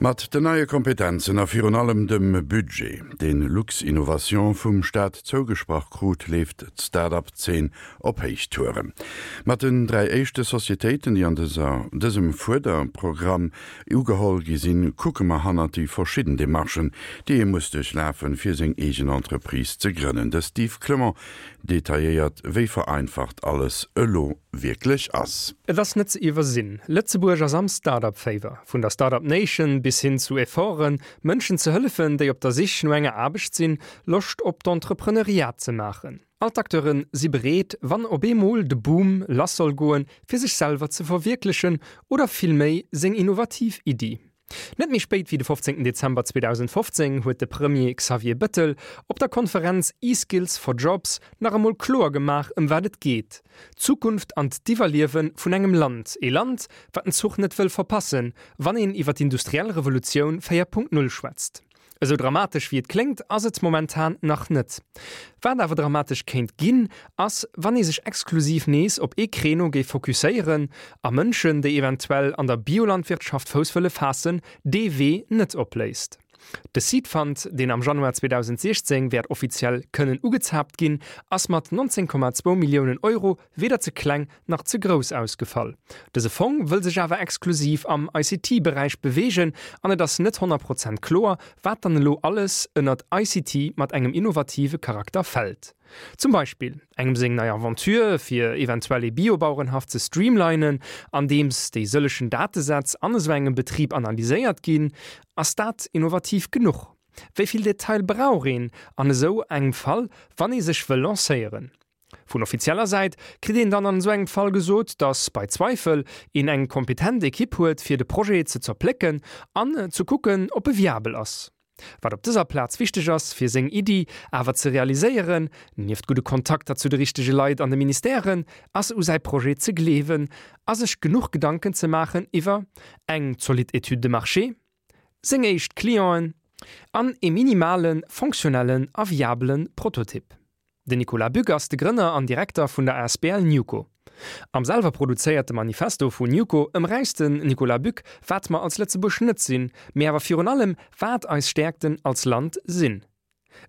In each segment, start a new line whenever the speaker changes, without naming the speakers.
Mat den neie Kompetenzen a virun allem dem Budget, deen Luxinnovation vum Staat zougesprach krut, leeft d'Start-up-Zeen op Héichtouren. Mat den 3 éischte Societéiten, déi an dëser dësem Fuerderprogramm ugeholl gi sinn, kucke mer hannert déi verschidden Demarchen, déi ee muss duerchlafen, fir seng eegen Entreprise ze grënnen. De Steve Clement detailléiert, wéi vereinfacht alles elo wierklech ass.
Et ass net ze iwwersinn, Lëtzebuerg ass am Start-up-Féiwer. Vun der Start-up Nation bis hin zu Efforten, Mënschen ze hëllefen, déi op der Sich no enger Aarbecht sinn, Loscht op d'Entrepreneuriat ze maachen. All d'Acteure si bereet, wann op eemol de Boom lass soll goen, fir sech selwer ze verwierklechen oder villméi seng innovativ Iddi. Net méi spéit wéi de 15 Dezember 2015 huet de Premier Xavier Bëttel op der Konferenz eSkills for Jobs nach emol kloer gemaach ëm wat et geet, d'Zukunft an d'Iwwerliewe vun engem Land, ee Land wat den Zuch net wëll verpassen, wann een iwwer d'industriell Revolutioun 4.0 schwätzt. Esou dramatesch wéi et kléngt, ass et momentan nach net. Wat awer dramatesch kéint ginn, ass wann ee sech exklusiv nees op ee Créneau géif fokusséieren a Mënschen, déi eventuell an der Biolandwirtschaft Fouss wëlle faassen, dee Wee net opléisst. De Seed Fund, deen am Januar 2016 wäert offiziell kënnen ugezaapt ginn, ass mat 19,2 Milliounen Euro weder ze kleng nach ze grouss ausgefall. Dëse Fong wëll sech awer exklusiv am ICT-Beräich beweegen an et ass net 100 Prozent kloer, wat dann elo alles ënnert ICT mat engem innovative Charakter fält. Zum Beispill engem seng nei Aventure fir eventuell ee Biobauerenhaff ze streamlinen, andeems déi sëllechen Datesätz an esou engem Betrib analyséiert ginn. Ass dat innovativ genuch? Wéi vill Detail brauch een an esou engem Fall, wann ee sech wëll lancéieren? Vun offizieller Säit kritt een dann an esou engem Fall gesot, datt bei Zweifel een eng kompetent Ekipp huet fir de Projet ze zerplécken an ze kucken op e viabel ass. Wat op dëser Plaz wichteg ass fir seng Iddi awer ze realiséieren, nieft gudde Kontakter zu de richtege Leit an de Ministèren, ass u säi Projet ze gleewen a sech genuch Gedanken ze maachen iwwer eng zolidd Étude de marché, seng éischt Clienten an ee minimale fonctionnellen a viabele Prototyp. Den Nicolas Bück ass de Grënner an Direkter vun der asbl Newco. Am selwer produzéierte Manifesto vun Newco ëmräisst den Nicolas Bück, wat mer als Lëtzebuerg net sinn, mee awer virun allem, wat eis Stäerkten als Land sinn.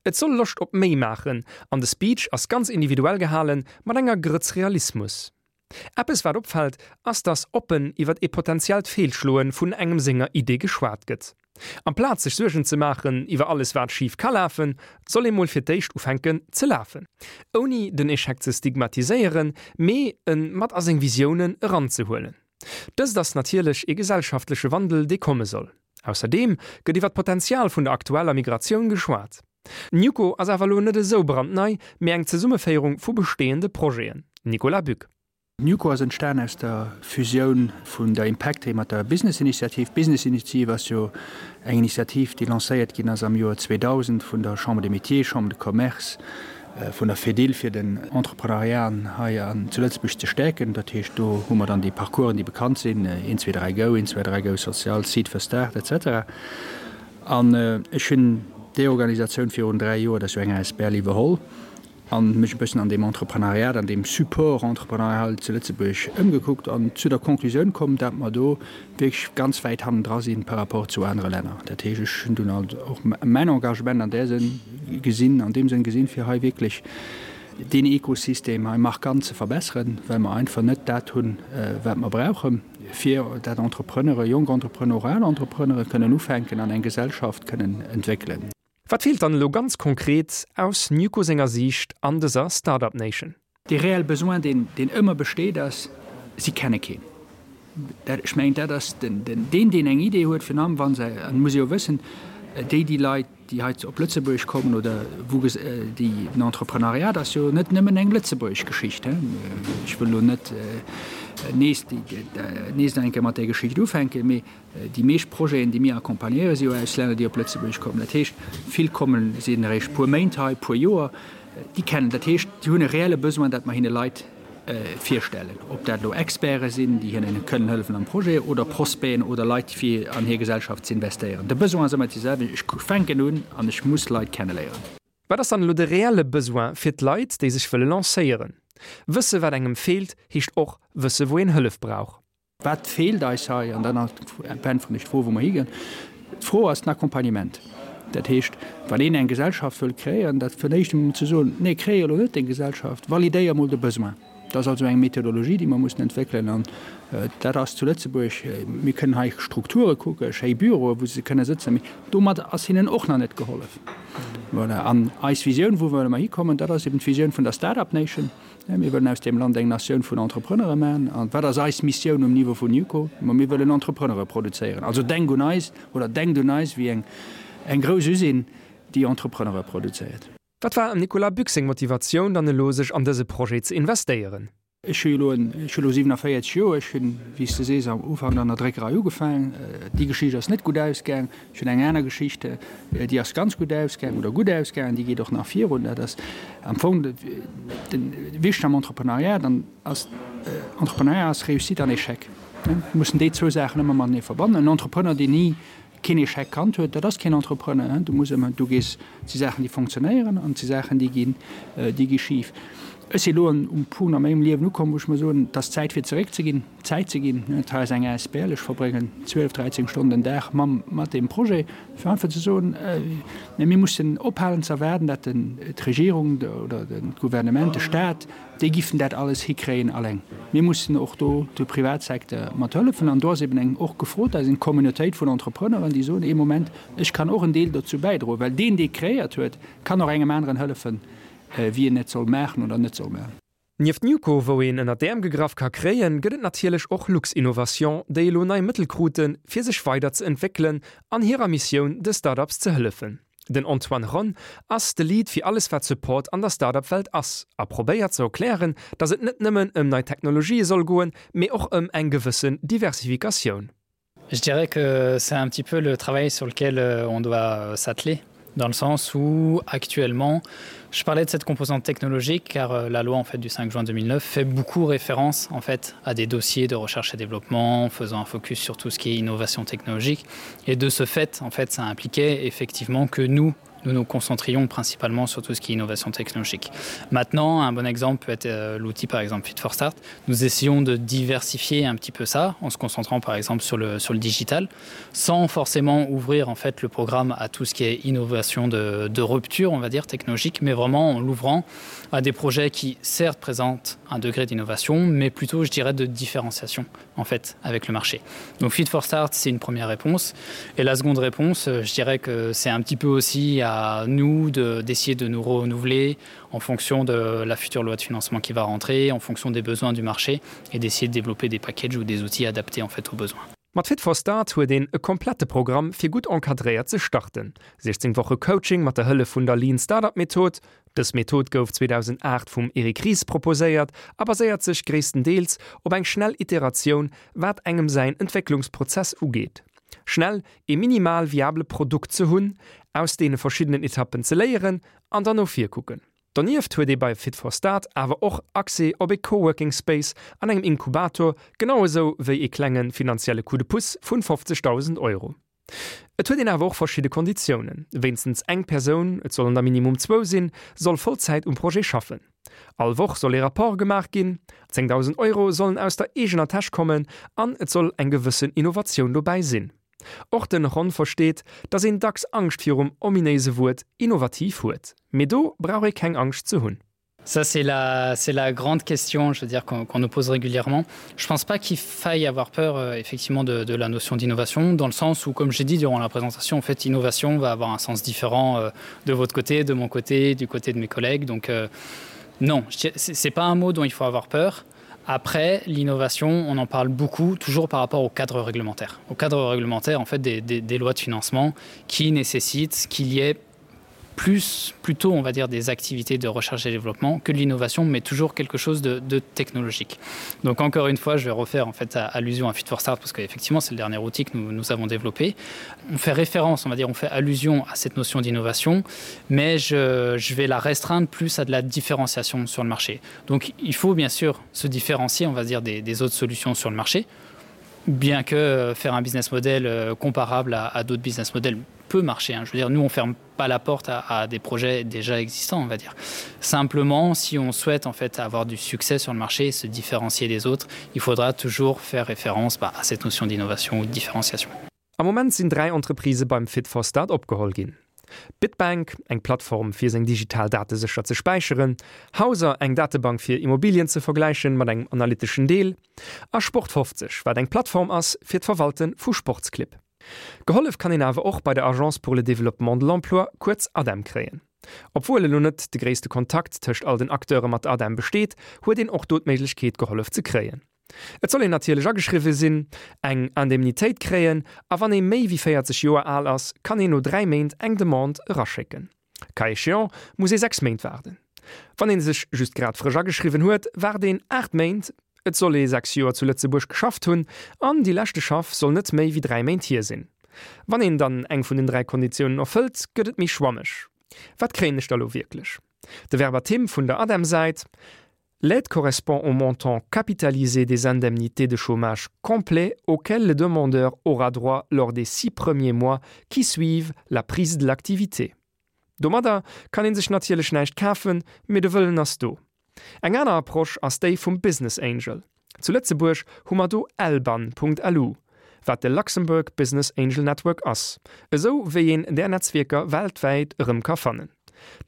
Et soll Loscht op méi maachen an de Speech ass ganz individuell gehalen, mat enger Grëtz Realismus. Eppes wat opfält, ass dass oppen iwwert ee potentiellt Feelschloe vun engem senger Idee geschwat gëtt. Amplaz sech Suergen ze maachen iwwer alles wat schif ka lafen, soll ee mol fir d'éischt ufänken ze lafen. Ouni den Echec ze stigmatiséieren, mee en mat a seng Visiounen eranzehuelen. Dëst ass natierlech ee gesellschaftleche Wandel dee komme soll. Ausserdeem gëtt iwwer d'Potenzial vun der aktueller Migratioun geschwat. Newco ass awer elo net esou brandnei, mee eng Zesummeféierung vu bestehende Projeten. Nicolas Buck.
Newco ass entstan aus der Fusioun vun der Impactry mat der Business Initiative. D'Business Initiative ass jo eng Initiativ, déi lancéiert ginn ass am Joer 2000 vun der Chambre des Métiers, Chambre de Commerce, vun der Fedil, fir den Entrepreneuriat hei an zu Lëtzebuerg ze stäerken. Dat heescht, do hu mer dann déi Parcoursen, déi bekannt sinn, 1, 2, 3, go, 1, 2, 3, go social, Seed for Start, et cetera. An ech hunn déi Organisatioun virun 3 Joer, dat ass jo eng asbl, iwwerholl a mech e bëssen an deem Entreprenariat, an deem Support entrepreneurial zu Lëtzebuerg ëmgekuckt an zu der Conclusioun komm, dat mer do wierklech ganz wäit hannendra si par rapport zu anere Länner. Dat heescht, ech hunn dunn alt och mäin Engagement an där Sënn gesinn, an deem Sënn gesinn, fir hei wierklech deen Ekosystem hei markant ze verbesseren, well mer einfach net dat hunn, wat mer brauchen. fir dat Entrepreneure, jonk Entrepreneure, al Entrepreneure kënnen ufänken an eng Gesellschaft kënnen entwéckelen.
Wat feelt dann elo ganz konkret aus Newco senger Siicht an dëser Start-up Nation?
Dee reelle Besoin, deen, deen ëmmer besteet, ass, si kenne keen. Dat, ech mengen, dat ass den, den, deen, deen eng Idee huet, virun allem wa se, an et muss ee jo wëssen, déi, déi Leit, déi hei op Lëtzebuerg kommen oder wou déi, den Entreprenariat ass jo net nëmmen eng lëtzebuergesch Geschicht, he. Ech wëll elo net nees déi, nees nach eng Kéier mat där Geschicht ufänken, mee déi meescht Projeten, déi mir accompagnéieren, si jo aus Länner, déi op Lëtzebuerg kommen. Dat heescht, vill kommen, sinn eréischt puer Méint hei, puer Joer, déi kennen, dat heescht, déi hunn e reelle Besoin, dat mer hinne Leit virstellen, ob dat elo Experte sinn, déi hinnen kënnen hëllefen am Projet, oder Prospecten oder Leit, fir an hir Gesellschaft ze investéieren. De Besoin ass ëmmer dee selwechten, Ech fänken un an ech muss Leit kenneléieren.
Wat ass dann elo de reelle Besoin fir d'Leit, déi sech wëlle lancéieren? Wësse wat engem feelt, heescht och wësse wou een Hëllef brauch.
Wat feelt eis hei? An dann äntweren ech d'Fro, wou mer higinn. D'Fro ass den Accompagnement. Dat heescht, wann een eng Gesellschaft wëll kreéieren, dat fir d'éischt emol ze soen, Nee, kreéier elo net deng Gesellschaft, validéier emol de Besoin. Dat ass also eng Methodologie, déi mer mussen entwéckelen. An dat ass zu Lëtzebuerg, mir kënnen hei Strukture kucken, schéi Büroe wou se kënne sëtzen, mee domat ass hinnen och nach net gehollef. Voilà. An eis Visioun, wou wëlle mer hikommen, dat ass eben d'Visioun vun der Start-up Nation. Mir wëllen aus deem Land eng Natioun vun Entrepreneure maachen. A wat ass eis Missioun um Niveau vun NewCo? Ma mir wëllen Entrepreneure produzéieren. Also denk un eis oder denkt un eis wéi eng eng grouss Usine, déi Entrepreneure produzéiert.
Wat war em Nicolas Bück seng Motivatioun dann elo sech an dëse Projet ze investéieren?
Ech hu jo elo, ech hu elo 47 Joer. Ech hunn, wéi s de sees, am Ufank an der Dréckerei ugefaangen. Déi Geschicht ass net gutt ausgaang. Ech hunn eng aner Geschicht, déi ass ganz gutt ausgaangen oder gutt ausgaangen, déi geet och nach virun. Dat ass am Fong de wichteg am Entrepreneuriat, dann ass Entrepreneuriat ass Réussite an Échec. Mir mussen déi zwou Saachen ëmmer matenee verbannen. En Entrepreneur, deen ni keen Échec kannt huet, dat ass keen Entrepreneur. Du muss ëmmer, du gees, et si Saachen, déi fonctionnéieren an et si Saachen, déi ginn, déi gi schif. Ech si elo um Punkt a mengem Liewen ukomm, wou ech mer soen, et ass Zäit fir zeréckzeginn. Zäit ze ginn. Et hei ass eng asbl, ech verbréngen 12, 13 Stonnen den Dag mam, mat deem Projet, fir einfach ze soen, mä mir mussen ophalen ze erwaarden, dat den, d'Regierung oder den, d'Gouvernement, de Stat, déi giffen dat alles hikréien alleng. Mir mussen och do de Privatsecteur mat hëllefen. An do ass eben eng och gefrot, da ass eng Communautéit vun Entrepreneuren, déi soen, ee Moment, ech kann och en Deel dozou bäidroen, well deen, dee kreéiert huet, kann och engem aneren hëllefen, wéi en et soll maachen oder net soll maachen.
Nieft Newco, wou een ënner d'Äerm gegraff ka kréien, gëtt et natierlech och Luxinnovation, déi elo nei Mëttel kruten, fir sech weider ze entwéckelen an hirer Missioun, de Start-ups ze hëllefen. Den Antoine Ronn ass de Lead fir alles wat Support an der Start-up-Welt ass a probéiert ze erklären, datt et net nëmmen ëm nei Technologië soll goen, mee och ëm eng gewëssen Diversifikatioun.
Je dirais que c'est un petit peu le travail sur lequel euh, on doit euh, s'atteler dans le sens où actuellement je parlais de cette composante technologique car euh, la loi en fait du 5 juin 2009 fait beaucoup référence en fait à des dossiers de recherche et développement faisant un focus sur tout ce qui est innovation technologique et de ce fait en fait ça impliquait effectivement que nous nous nous concentrions principalement sur tout ce qui est innovation technologique. Maintenant, un bon exemple peut être euh, l'outil par exemple Fit for Start. Nous essayons de diversifier un petit peu ça en se concentrant par exemple sur le, sur le digital, sans forcément ouvrir en fait le programme à tout ce qui est innovation de, de rupture, on va dire technologique, mais vraiment en l'ouvrant à des projets qui certes présentent un degré d'innovation, mais plutôt je dirais de différenciation en fait avec le marché. Donc Fit for Start, c'est une première réponse. Et la seconde réponse, euh, je dirais que c'est un petit peu aussi à nous d'essayer de, de nous renouveler en fonction de la future loi de financement qui va rentrer, en fonction des besoins du marché et d'essayer de développer des packages ou des outils adaptés en fait aux besoins.
Mat Fit for Start huet een e komplette Programm fir gutt encadréiert ze starten. 16 Woche Coaching mat der Hëllef vun der Lean Startup Method. Dës Method gouf 2008 vum Eric Ries proposéiert a baséiert sech gréisstendeels op eng schnell Iteratioun wat engem säin Entwécklungsprozess ugeet. Schnell ee minimal viable Produkt ze hunn, aus deene verschiddenen Etappen ze léieren an dann no vir kucken. Donieft huet ee bei Fit for Start awer och Accès op ee Coworking Space an engem Inkubator, genau esou wéi ee klenge finanzielle Coup de pouce vun 50.000 Euro. Et huet een awer och verschidde Konditiounen, Wéinstens eng Persoun, et sollen der minimum zwou sinn, soll Vollzäit um Projet schaffen. All Woch soll ee Rapport gemaach ginn, 10.000 Euro sollen aus der eegener Täsch kommen an et soll eng gewëssen Innovatioun dobäi sinn. Och den Ron versteet, dass een dacks Angscht virum ominéise Wuert innovativ huet. Mee do brauch ee keng Angscht ze hunn.
Ça c'est la c'est la grande question je veux dire qu'on qu nous pose régulièrement. Je pense pas qu'il faille avoir peur euh, effectivement de, de la notion d'innovation dans le sens où comme j'ai dit durant la présentation en fait innovation va avoir un sens différent euh, de votre côté, de mon côté, du côté de mes collègues donc euh, non c'est pas un mot dont il faut avoir peur. Après l'innovation, on en parle beaucoup toujours par rapport au cadre réglementaire. Au cadre réglementaire en fait des, des, des lois de financement qui nécessitent qu'il y ait plus plutôt on va dire des activités de recherche et développement que de l'innovation mais toujours quelque chose de, de technologique donc encore une fois je vais refaire en fait à, allusion à fit for start parce qu'effectivement c'est le dernier outil que nous, nous avons développé on fait référence on va dire on fait allusion à cette notion d'innovation mais je, je vais la restreindre plus à de la différenciation sur le marché donc il faut bien sûr se différencier on va dire des, des autres solutions sur le marché bien que euh, faire un business model euh, comparable à, à d'autres business models peut marcher hein. je veux dire nous on ferme pas la porte à, à des projets déjà existants on va dire simplement si on souhaite en fait avoir du succès sur le marché et se différencier des autres il faudra toujours faire référence bah, à cette notion d'innovation ou de différenciation.
Am Moment sinn 3 Entreprisë beim Fit for Start opgeholl ginn. Bitbank, eng Plattform fir seng digital Date sécher ze späicheren, Houser, eng Datebank fir Immobilien ze vergläichen mat engem analyteschen Deel, a Sport 50, wat eng Plattform ass fir d'Verwalte vu Sportsclibb. Gehollef kann een awer och bei der Agence pour le développement de l'emploi, kuerz ADEM, kréien. Obwuel elo net de gréisste Kontakt tëscht all den Acteure mat der ADEM besteet, huet een och do d'Méiglechkeet gehollef ze kréien. Et soll een natierlech ageschriwwe sinn, eng Indemnitéit kréien a wann ee méi wéi 40 Joer al ass, kann een no 3 Méint eng Demande eraschécken. Cas échéant muss ee 6 Méint waarden. Wann ee sech just grad frësch ageschriwwen huet, waart een 8 Méint. Et soll ee 6 Joer zu Lëtzebuerg geschafft hunn an déi leschte Schaff soll net méi wéi 3 Méint hier sinn. Wann een dann eng vun den 3 Konditiounen erfëllt, gëtt et méi schwammeg. Wat kréien ech da lo wierklech? De Verbatim vun der ADEM-Säit, L'aide correspond au montant capitalisé des indemnités de chômage complet auquel le demandeur aura droit lors des six premiers mois qui suivent la prise de l'activité. Domadder kann een sech natierlech näischt kafen, mee de Wëllen ass do. Eng aner Approche ass déi vum Business Angel. Zu Lëtzebuerg hu mer do lban.lu, wat de Luxembourg Business Angel Network ass, esou wéi een där Netzwierker weltwäit erëm ka fannen.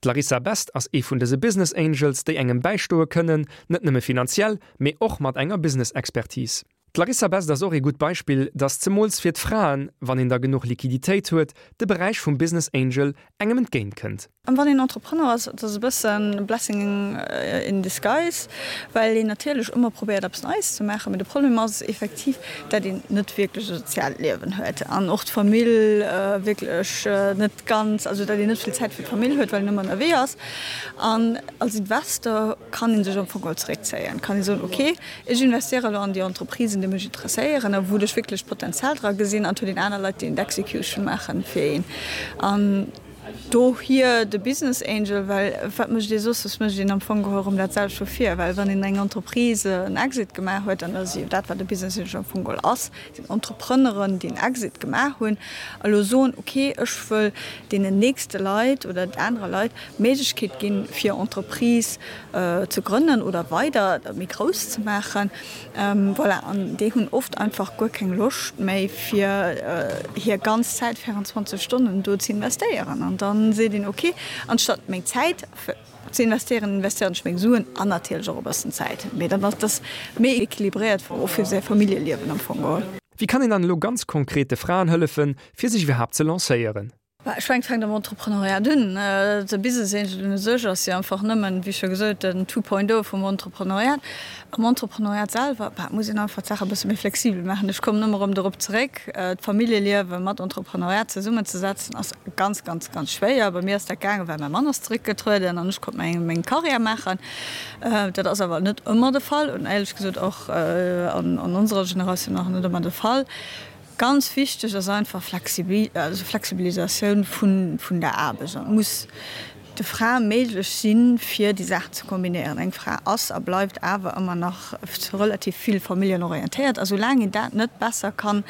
D'Larissa Best ass ee vun dëse Business Angels, déi engem bäistoe kënnen, net nëmme finanziell, mee och mat enger Business-Expertise. D'Larissa Best ass och ee gutt Beispill, dass zemools fir d'Fraen, wann een da genuch Liquiditéit huet, de Beräich vum Business Angel engem entgéint kënnt.
An wann een Entrepreneur ass, et ass e bëssen blessing in disguise, well een natierlech ëmmer probéiert eppes Neies ze maachen, mee de Problem ass effektiv, dat een net wierklech e soziaalt Liewen huet an och d'Famill wierklech net ganz, also dat een net vill Zäit fir d'Famill huet, well een ëmmer ënnerwee ass. An als Investor kann ee sech am Fong geholl zeréckzéien, kann ee soen, ok, Ech investéiere elo an déi Entreprisen, déi mech interesséieren a wou ech wierklech d'Potenzial dra gesinn. An et huet een aner Leit, déi d'Execution maachen fir een. An dohier de Business Angel, well wat mécht ee soss? Soss mécht een am Fong geholl erëm dat selwecht vu vir. Well wann een eng Entreprise en Exit gemaach huet, an dat ass jo dat, wat e Business Angel am Fong geholl ass, sinn Entrepreneuren, déi en Exit gemaach hunn a lo soen, okay, ech wëll deenen nächste Leit oder anere Leit d'Méiglechkeet ginn, fir Entreprise ze grënnen oder weider méi grouss ze maachen. Voilà, an déi hunn oft einfach guer keng Loscht méi fir hir ganz Zäit 24 Stonnen do ze investéieren. An da seet een, okay, anstatt meng Zäit ze investéieren, investéieren ech meng Suen an natierlech och e bëssen Zäit. Mee dann ass dass méi equilibréiert och fir säi Familljeliewen am Fong geholl.
Wéi kann een dann elo ganz konkret de Fraen hëllefen, fir sech iwwerhaapt ze lancéieren?
Ech mengen, et fänkt am Entrepreneuriat un. De Business Angel un sech ass jo einfach nëmmen, wéi scho gesot, den Two Point O vum Entrepreneuriat. Am Entrepreneuriat selwer, bah, muss een einfach d'Saach e bësse méi flexibel maachen. Ech kommen ëmmer erëm dorop zeréck, D'Familljeliewe mat Entrepreneuriat zesummenzesetzen ass ganz, ganz, ganz schwéier. Bei mir ass dat gaangen, well mäi Mann ass zeréckgetrueden an ech konnt meng, meng Karriär maachen. Dat ass awer net ëmmer de Fall und éierlech gesot och an onserer Generatioun nach net ëmmer de Fall. Ganz wichteg ass einfach Flexibilisatioun vun der Aarbecht. An et muss de Frae méiglech sinn, fir déi Saachen ze kombinéieren. Eng Fra ass a bleift awer ëmmer nach relativ vill familljenorientéiert. A soulaang een dat net besser kann,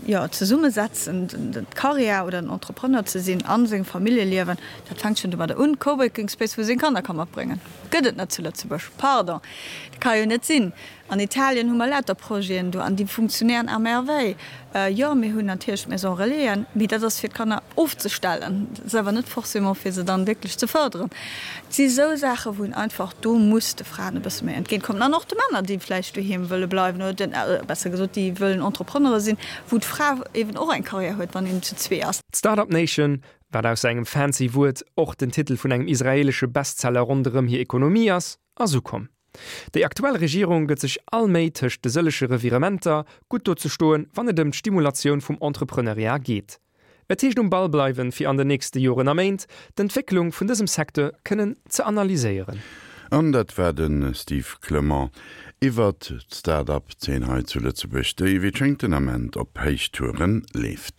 jo, zesummesetzen, d'Karriär oder den Entrepreneur ze sinn a sengem Familljeliewen, dat fänkt schonn domadder un, Coworking Space, wou ee seng Kanner ka matbréngen, gëtt et net zu Lëtzebuerg. Pardon, dat ka jo net sinn. An Italien hu mer lauter Projeten do an déi funktionéieren à merveille. Jo, mir hunn natierlech d'Maison Relaisen, mee dat ass fir d'Kanner ofzestellen, dat ass awer net forcément fir se dann wierklech ze fërderen. Et si sou Saachen, wou een einfach do muss de Fraen e bësse méi entgéintkommen an och de Männer, déi vläicht doheem wëlle bleiwen oder den, besser gesot, déi wëllen Entrepreneure sinn, wou d'Fra eeben och eng Karriär huet, wann een zu zwee ass.
D'Start-up Nation, wat ausser engem fancy Wuert och den Titel vun engem israelesche Bestseller ronderëm hir Ekonomie ass, ass ukomm. Déi aktuell Regierung gëtt sech all Méi tëscht de sëllege Revirementer, gutt do ze stoen, wann et ëm d'Stimulatioun vum Entrepreneuriat geet. Et heescht um Ball bleiwen, fir an den nächste Joren a Méint d'Entwécklung vun dësem Secteur kënnen ze analyséieren.
An dat war de Steve Clement iwwert d'Start-up-Zeen hei zu Lëtzebuerg, déi wéi et schéngt den Ament op Héichtouren leeft.